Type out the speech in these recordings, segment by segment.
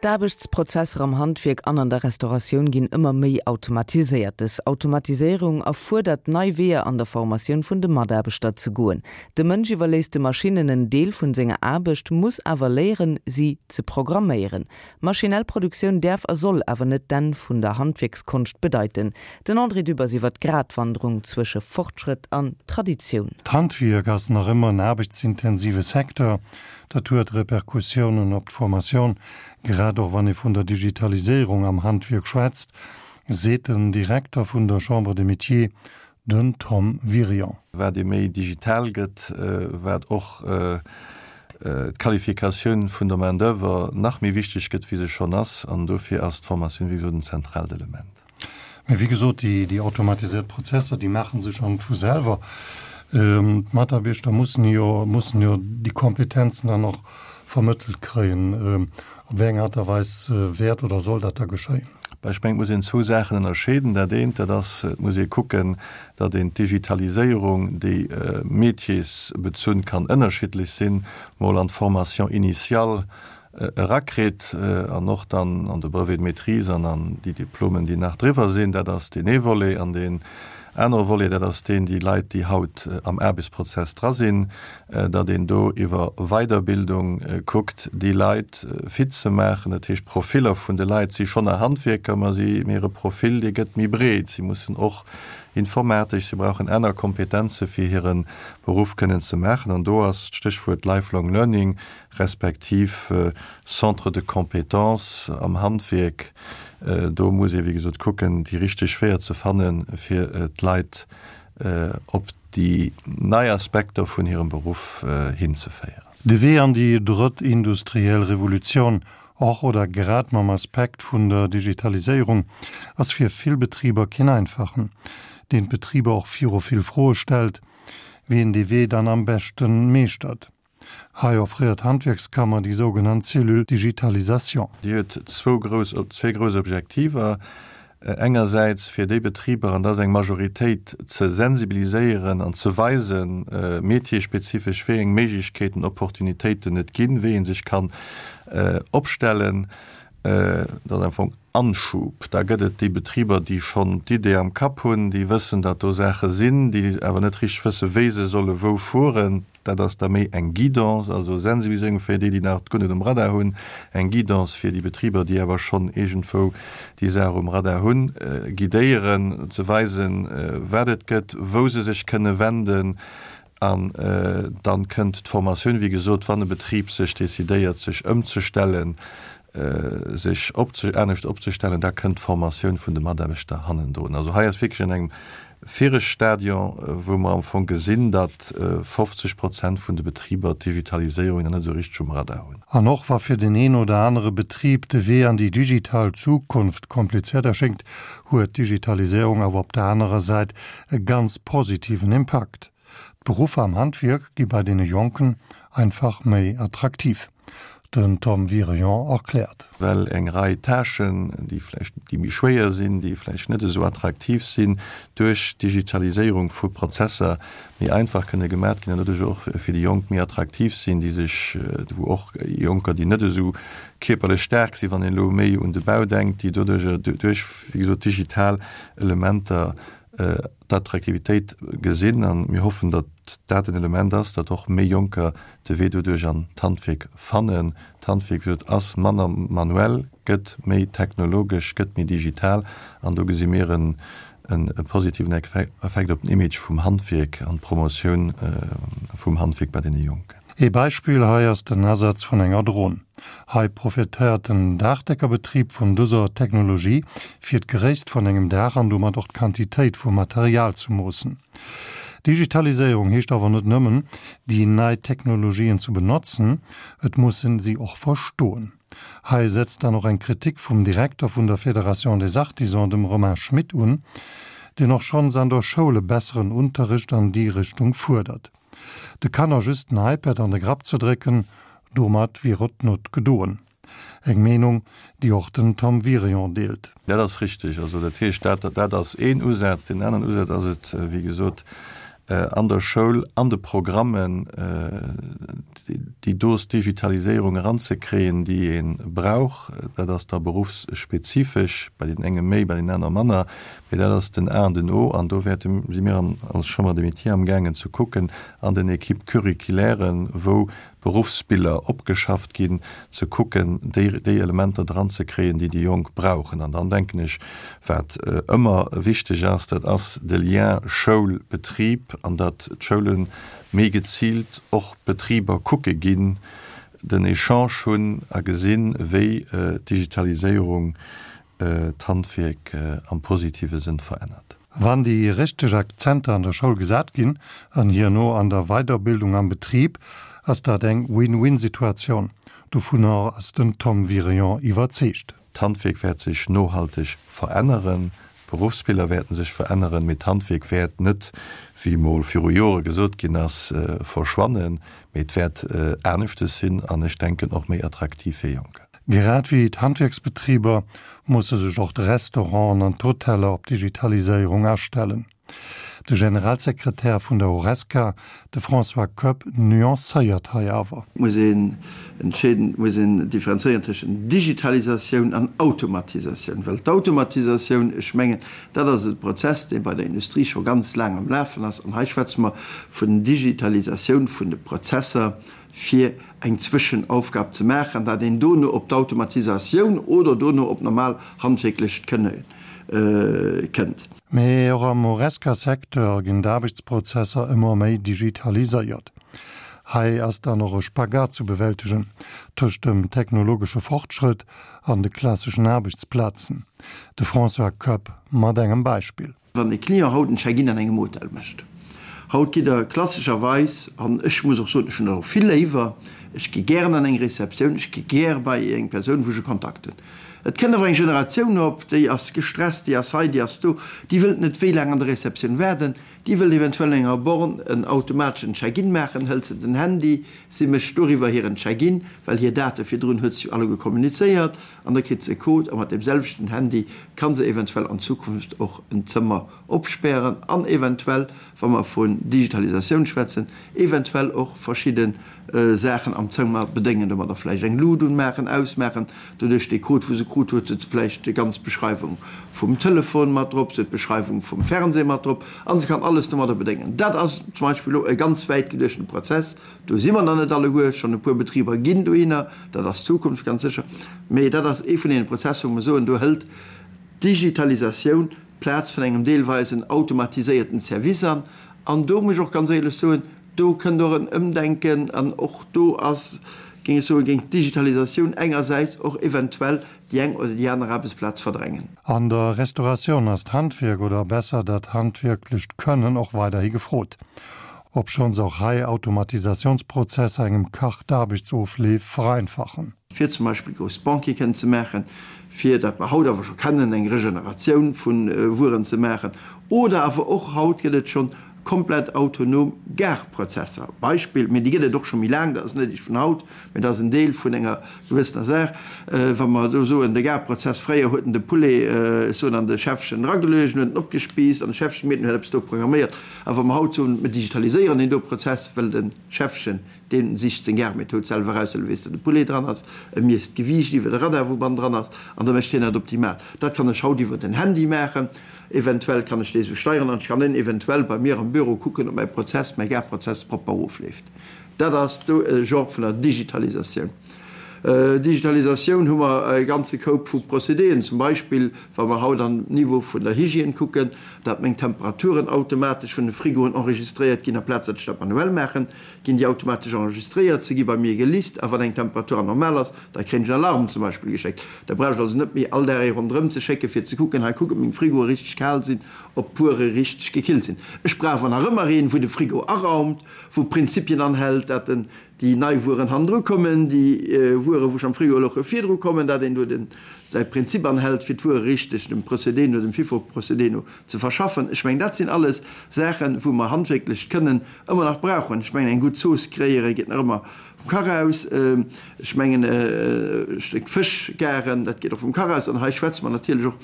D'Aarbechtsprozesser am Handwierk an an der Restauratioun ginn ëmmer méi automatiséiert. Dës Automatiséierung erfuerdert, nei Weeër an der Formatioun vun de Mataarbechter ze goen. De Mënsch iwwerléisst de Maschinnen en Deel vun senger Aarbecht, muss awer léieren, si ze programméieren. Maschinell Produktioun däerf a soll awer net d'Enn vun der Handwierkskonscht bedeiten. Den André Dübbers iwwer d'Gratwanderung zwësche Fortschrëtt an Traditioun. D'Handwierk ass nach ëmmer en aarbechtsintensive Secteur. Dat huet Repercussiounen op d'Formatioun, grad och wann ee vun der Digitaliséierung am Handwierk schwätzt, seet den Direkter vun der Chambre des Métiers, den Tom Wirion. Wat ee méi digital gëtt, wat och d'Qualifikatioun vun der Main d'oeuvre nach méi wichteg gëtt, wéi se schonn ass. An dofir ass d'Formatioun, wéi gesot, en zentraalt Element. Mä wéi gesot, déi automatiséiert Prozesser, déi maache sech am vu selwer. D'Mataarbechter mussen jo, mussen jo déi Kompetenzen dann och vermëttelt kréien. Op wéi eng Aart a Weis wäert oder soll dat da geschéien? Bah, ech mengen, et muss een zwou Saachen ënnerscheeden. Dat eent, dat ass, et muss ee kucken, datt een d'Digitaliséierung, déi métiersbezunn kann ënnerschiddlech sinn, mol an d'Formation initiale erakritt an och dann an de Brevet de maîtrise an an déi Diplomen, déi nach driwwer sinn. Dat ass deen ee Volet. An deen anere Volet, dat ass deen, déi Leit, déi haut am Aarbechtsprozess dra sinn, datt een do iwwer Weiderbildung kuckt, déi Leit fit ze maachen. Dat heescht, d'Profiller vun de Leit si schonn nach Handwierker, ma si, mee hire Profil, dee gëtt méi breet. Si mussen och informatesch, si brauchen aner Kompetenze fir hire Beruff kënnen ze maachen. An do ass d'Stéchwuert Lifelong Learning respektiv Centres de compétences am Handwierk, do muss ee wéi gesot kucken, déi richteg Weeër ze fannen, fir d'Leit op déi nei Aspekter vun hirem Beruff hinzeféieren. De Wee an déi drëtt industriell Revolutioun, och oder grad mam Aspekt vun der Digitaliséierung, ass fir vill Betriber keen einfachen, deen d'Betriber och viru vill Froe stellt, wéi een dee Wee dann am beschten meeschtert. Hei offréiert d'Handwierkskammer déi sougenannt Cellule Digitalisation. Déi huet zwou grouss, zwee grouss Objektiver, Engersäits fir déi Betriber, an dat ass eng Majoritéit, ze sensibiliséieren an ze weisen, métierspezifesch, wéi eng Méiglechkeeten, Opportunitéiten et ginn, wéi ee sech kann opstellen. Dat ass am Fong Anschub. Da gëtt et déi Betriber, déi schonn d'Idee am Kapp hunn, déi wëssen, datt do Saache sinn, déi awer net richteg wëssen, wéi se solle wou fueren. Dat ass da méi eng Guidance, also Sensibiliséierung fir déi, déi nach guer net um Radar hunn, eng Guidance fir déi Betriber, déi awer schonn iergendwou déi Saach um Radar hunn, guidéieren, ze weisen, wat et gëtt, wou se sech kënne wenden. An dann kënnt d'Formatioun, wéi gesot, wann e Betrib sech decidéiert, sech ëmzestellen, sech anescht opzestellen, da kënnt d'Formatioun vun de Mataarbechter hannendrun. Also hei ass wierklech an engem viregt Stadion, wou mer am Fong gesinn, datt 50 Prozent vun de Betriber d'Digitaliséierung nach net esou richteg um Radar hunn. An och wa fir den een oder anere Betrib de Wee an déi digital Zukunft komplizéiert erschéngt, huet d'Digitaliséierung awer op der anerer Säit e ganz positiven Impakt. D'Beruffer am Handwierk gi bei deene Jonken einfach méi attraktiv. Den Tom Wirion erkläert. Well eng Rei Tâchen, déi vläicht, déi méi schwéier sinn, déi vläicht net esou attraktiv sinn, duerch d'Digitaliséierung vu Prozesser méi einfach kënne gemat ginn an doduerch och fir déi Jonk méi attraktiv sinn, déi sech, wou och Jonker, déi net esou kierperlech staark sinn, wann een elo méi un de Bau denkt, déi doduerch, duerch, wéi gesot, digital Elementer d'Attraktivitéit gesinn an mir hoffen, datt dat en Element ass, datt och méi Jonker de Wee doduerch an d'Handwierk fannen. D'Handwierk, wéi gesot, ass manner manuell, gëtt méi technologesch, gëtt méi digital an do gesi mir en positiven Effekt op den Image vum Handwierk an d'Promotioun vum Handwierk bei deene Jonken. Ee Beispill hei ass den Asaz vun enger Dron. Hei profitéiert den Daachdeckerbetrib vun dëser Technologie, fir d'Gréisst vun engem Daach an domat och d'Quantitéit vum Material ze moossen. Digitaliséierung heescht awer net nëmmen, déi nei Technologien ze benotzen, et muss en si och verstoen. Hei setzt dann och eng Kritik vum Direkter vun der Fédération des Artisans, dem Romain Schmit, un, deen och schonns an der Schoul e besseren Unterricht an déi Richtung fuerdert. De Kanner just den iPad an de Grapp ze drécken, domat wier et not gedoen. Eng Meenung, déi och den Tom Wirion deelt. Dat ass richteg. Also dat heescht, dat, dat ass een Usaz. Deen aneren Usaz ass et, wéi gesot, an der Schoul, an de Programmen déi Dose Digitaliséierung eranzekréien, déi ee brauch. Dat ass da beruffsspezifesch, bei deenen enge méi, bei deenen aner manner, mee dat ass den A an den O. An do wäerte si mir als Chambre des Métiers amgaangen ze kucken an den Équipes curriculairen, wou Beruffsbiller opgeschafft ginn, ze kucken, déi déi Elementer dranzekréien, déi déi Jonk brauchen. An dann denken ech, wat ëmmer wichteg ass, dat ass de Lien Schoul-Betrib an datt d'Schoule méi geziilt och Betriber kucke ginn, den Echange hunn a gesinn, wéi d'Digitaliséierung d'Handwierk am positive Sënn verännert. Wann déi richteg Akzenter an der Schoul gesat ginn an hierno an der Weiderbildung am Betrib, ass dat eng Win-win-Situatioun. Dovunner ass den Tom Wirion iwwerzeegt. D'Handwierk wäert sech nohalteg veränneren, d'Beruffsbiller wäerten sech veränneren, mee d'Handwierk wäert net, wéi mol viru Jore gesot ginn ass, verschwannen, mee et wäert aneschtes sinn an ech denken och méi attraktiv fir Jonker. Grad wéi d'Handwierksbetriber musse sech och d'Restauranten an d'Hoteller op d'Digitaliséierung astellen. De Generalsekretär vun der Horesca, de François Koepp, nuancéiert hei awer. Et muss een entscheeden, et muss een differenzéieren tëschent Digitalisatioun an Automatisatioun, well d'Automatisatioun, ech mengen, dat ass e Prozess, dee bei der Industrie scho ganz laang am Lafen ass, an hei schwätze mer vun Digitalisatioun vun de Prozesser, fir eng Zwëschenaufgab ze maachen, dat een dono op d'Automatisatioun oder dono op normal handwierklecht Kënne kënnt. Mee och am Horesca-Secteur ginn d'Aarbechtsprozesser ëmmer méi digitaliséiert. Hei ass dann och e Spagat zu bewältegen tëscht dem technologesche Fortschrëtt an de klasseschen Aarbechtsplazen. De François Koepp mat engem Beispill. Wann e Client haut en Check-in an engem Hotel mécht, haut gitt Der klassescherweis, an ech muss och soen, ech hunn dat och vill léiwer, ech gi gären an eng Receptioun, ech gi gär bei eng Persoun, wou ech e Kontakt hunn. Et kënnt awer eng Generatioun op, déi ass gestresst, déi ass hei, déi ass do, déi wëllt net wéi laang an der Receptioun waarden, déi wëllt eventuell an enger Born en automateschen Check-in maachen, hëlt se den Handy, si mécht doriwwer hiren Check-in, well hir Date virdrun huet se jo alleguer kommunizéiert, An da kritt se e Code a mat deem selwechten Handy ka se eventuell an Zukunft och en Zëmmer opspären an eventuell, wa mer vun Digitalisatioun schwätzen, eventuell och verschidde Saachen am Zëmmer bedéngen, domadder vläicht eng Lut unmaachen, ausmaachen. Doduerch dee Code, wou se krut huet, huet se vläicht déi ganz Beschreiwung vum Telefon mat drop, se huet d'Beschreiwung vum Fernseh mat drop a se kann alles domadder bedéngen. Dat ass zum Beispill elo e ganz wäit geduechten Prozess. Do si mer nach net alleguer, schonn e puer Betriber ginn dohinner, dat ass d'Zukunft ganz sécher, mee dat ass ee vun deene Prozesser, wou mer soen, do hëlt d'Digitalisatioun d'Plaz vun engem deelweisen automatiséierten Service an. An do muss ech och ganz éierlech soen, do kënnt och en Ëmdenken an och do ass, géing ech soen, géing d'Digitalisatioun engersäits och eventuell déi eng oder déi aner Aarbechtsplaz verdrängen. An der Restauratioun ass d'Handwierk, oder besser dat handwierklecht Kënnen, och weiderhi gefrot. Obschonns och hei Automatisatiounsprozesser engem Kach d'Aarbechtsofleef vereinfachen. Fir zum Beispill grouss Banquete kënnen ze maachen, fir, dat mer haut awer scho kennen, eng Regeneratioun vu Wueren ze maachen, oder awer och, haut gëtt et schonn komplett autonom Garprozesser, Beispill, mee déi gëtt et och scho méi laang, dat ass net eréischt vun haut, mee dat ass en Deel vun enger gewëssener Saach, wa mer do soen, de Garprozess, fréier huet en de Poulet, ech soen, an de Schäffchen erageluecht, en huet en opgespiisst an de Schäffchen, mee en huet eppes do programméiert. A wa mer haut soen, mer digitaliséieren deen do Prozess, well de Schäffchen, dee sicht seng Garmethod selwer eraus, well e weess, datt de Poulet dran ass, e miesst d'Gewiicht iwwer de Radar, wou bann dran ass, an da mécht hien dat optimal. Dat kann ech haut iwwer den Handy maachen. Eventuell kann ech dee sou steieren an ech kann en eventuell bei mir am Büro kucken, ob mäi Prozess, mäi Garprozess propper ofleeft. Dat ass do e Genre vun der Digitalisatioun. Digitalisatioun hu mer e ganze Koup vu Procédéen, zum Beispill wa mer haut an Niveau vun der Hygiène kucken, dat meng Temperaturen automatesch vun de Frigoen enregistréiert ginn, aplaz dat ech dat manuell maachen, ginn déi automatesch enregistréiert, se gi bei mir gelist a wann eng Temperatur anormal ass, da kréien ech en Alarm zum Beispill geschéckt. Da brauch ech also net méi all Dag ee ronderëm ze schécken, fir ze kucken, hei kuck, ob meng Frigoe richteg kal sinn, ob d'Wuere richteg gekillt sinn. Ech brauch awer nach ëmmer een, wou de Frigo araumt, wou Prinzipien anhält, dat en déi nei Wueren hannendru kommen, déi Wuere wou schonn am Frigo louche virdru kommen, dat een do den säi Prinzip anhält, fir d'Wuere richteg dem Procédé no, dem FIFO-Procédé no ze verschaffen. Ech mengen, dat sinn alles Saachen, wou mer handwierklecht Kënnen ëmmer nach brauchen. Ech mengen, eng gutt Zooss kréiere geet nach ëmmer. vum Kach aus. Ech mengen e Stéck Fësch garen, dat geet och vum Kach aus. An hei schwätze mer natierlech och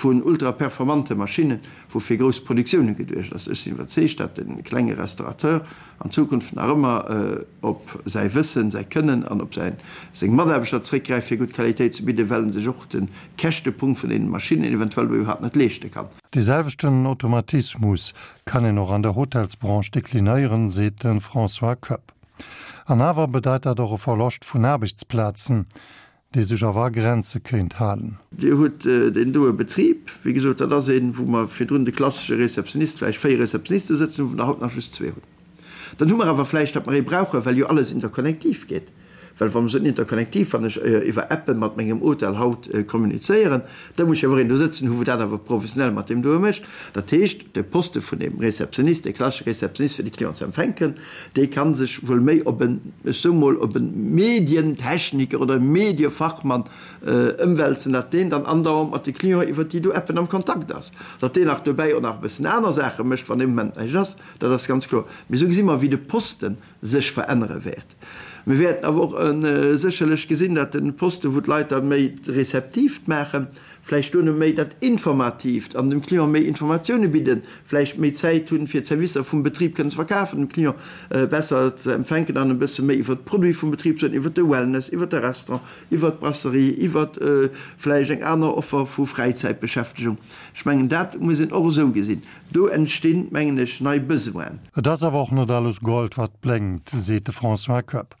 vun ultraperformante Maschinnen, wou fir grouss Produktioune geduecht ass. Ech sinn iwwerzeegt, datt de klenge Restaurateur an Zukunft nach ëmmer op säi Wëssen, säi Kënnen an op säin, seng Mataarbechter zréckgräift, fir gutt Qualitéit ze bidden, well en sech och de Käschtepunkt vun deenen Maschinnen eventuell do iwwerhaapt net leeschte kann. Dee selwechten Automatismus kann een och an der Hotelsbranche deklinéieren, seet de François Koepp. An awer bedeit dat och e Verloscht vun Aarbechtsplazen, dee sech awer a Grenze kéint halen. Dir hutt deen doe Betrib, wéi gesot, dat ass een, wou mer virdrun de klassesche Réceptionnist, vläicht 4 Réceptionniste sëtzen hunn, wou mer der haut nach just zwee hunn. Dann hu mer awer vläicht, datt mer ee brauchen, well jo alles interkonnektiv geet. Well wa mer soen interkonnektiv, wann ech iwwer Appe mat mengem Hotel haut kommunizéieren, da muss ech awer och een do sëtzen hu wou dat awer professionell mat deem doe mécht. Dat heescht, de Poste vun deem Réceptionnist, dee klassesche Réceptionnist fir de Client ze empfänken, dee ka sech wuel méi op en, ech soe mol, op e Medientechniker oder e Mediefachmann ëmwälzen, datt deen dann andauernd mat de Clienten iwwert déi do Appen am Kontakt ass. Datt deen nach dobäi och nach e bëssen aner Saache mécht, wann dee Moment näischt ass, dat ass ganz kloer. Mee esou gesi mer, wéi de Poste sech verännere wäert. Mir wäerten awer och sécherlech gesinn, datt de Poste, wou d'Leit da méi d'Receptiivt maachen, vläicht duerno méi dat Informatiivt an dem Client méi Informatioune bidden, vläicht méi Zäit hunn, fir d'Servicer vum Betrib kënnen ze verkafen, dem Client besser ze empfänken an e bësse méi iwwert d'Produite vum Betrib ze soen, iwwert de Wellness, iwwert de Restaurant, iwwert d'Brasserie, iwwert vläicht eng aner Offer vu Fräizäitbeschäftegung. Ech mengen, dat muss een och esou gesinn. Do entstinn, mengen ech, nei Besoinen. Et ass awer och net alles Gold, wat blénkt, seet de François Koepp,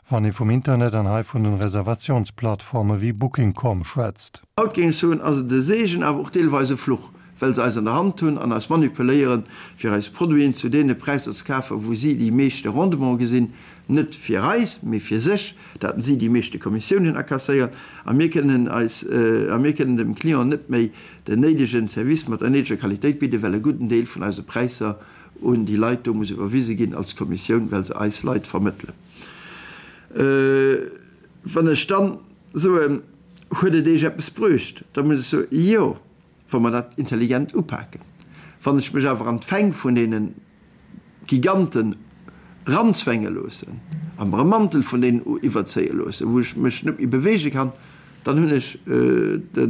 wann ee vum Internet an hei vun den Reservatiounsplattforme wéi Booking.com schwätzt. Haut géing ech soen, ass et e Seegen, awer och deelweis e Fluch, well se eis an der Hand hunn an eis manipuléieren, fir eis Produiten zu deene Präisser ze kafen, wou si déi meeschte Rendement gesinn, net fir eis, mee fir sech, dat si déi meeschte Kommissiounen akasséieren a mir kënnen eis a mir kënnen dem Client net méi den néidegen Service mat der néideger Qualitéit bidden, well e gudden Deel vun eise Präisser un déi Leit do muss iwwerwise ginn als Kommissioun, well se eis Leit vermëttelen. Wann ech dann soen, Huet et Iech eppes bruecht? da muss ech soen, Jo, wa mer dat intelligent upaken. Wann ech mech awer an d'Fäng vun deene Giganten ranzwänge loossen a mer e Mantel vun deenen iwwerzéie loossen, wou ech mech net méi beweege kann, dann hunn ech de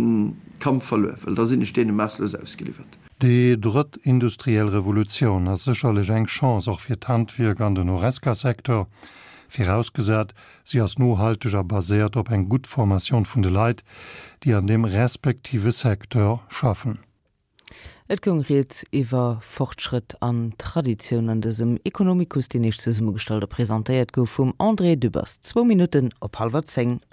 Kampf verluer, well da sinn ech deene maasslos ausgeliwwert. Déi drëtt industriell Revolutioun ass sécherlech eng Chance och fir d'Handwierk an den Horesca-Secteur, virausgesat si ass nohalteg a baséiert op eng gutt Formation vun de Leit, déi an deem respektive Secteur schaffen. Et goung rieds iwwer Fortschrëtt an Traditioun an dësem Economicus, deen Iech zesummegestallt a presentéiert gouf vum André Dübbers. Zwou Minutten op hallwer 10.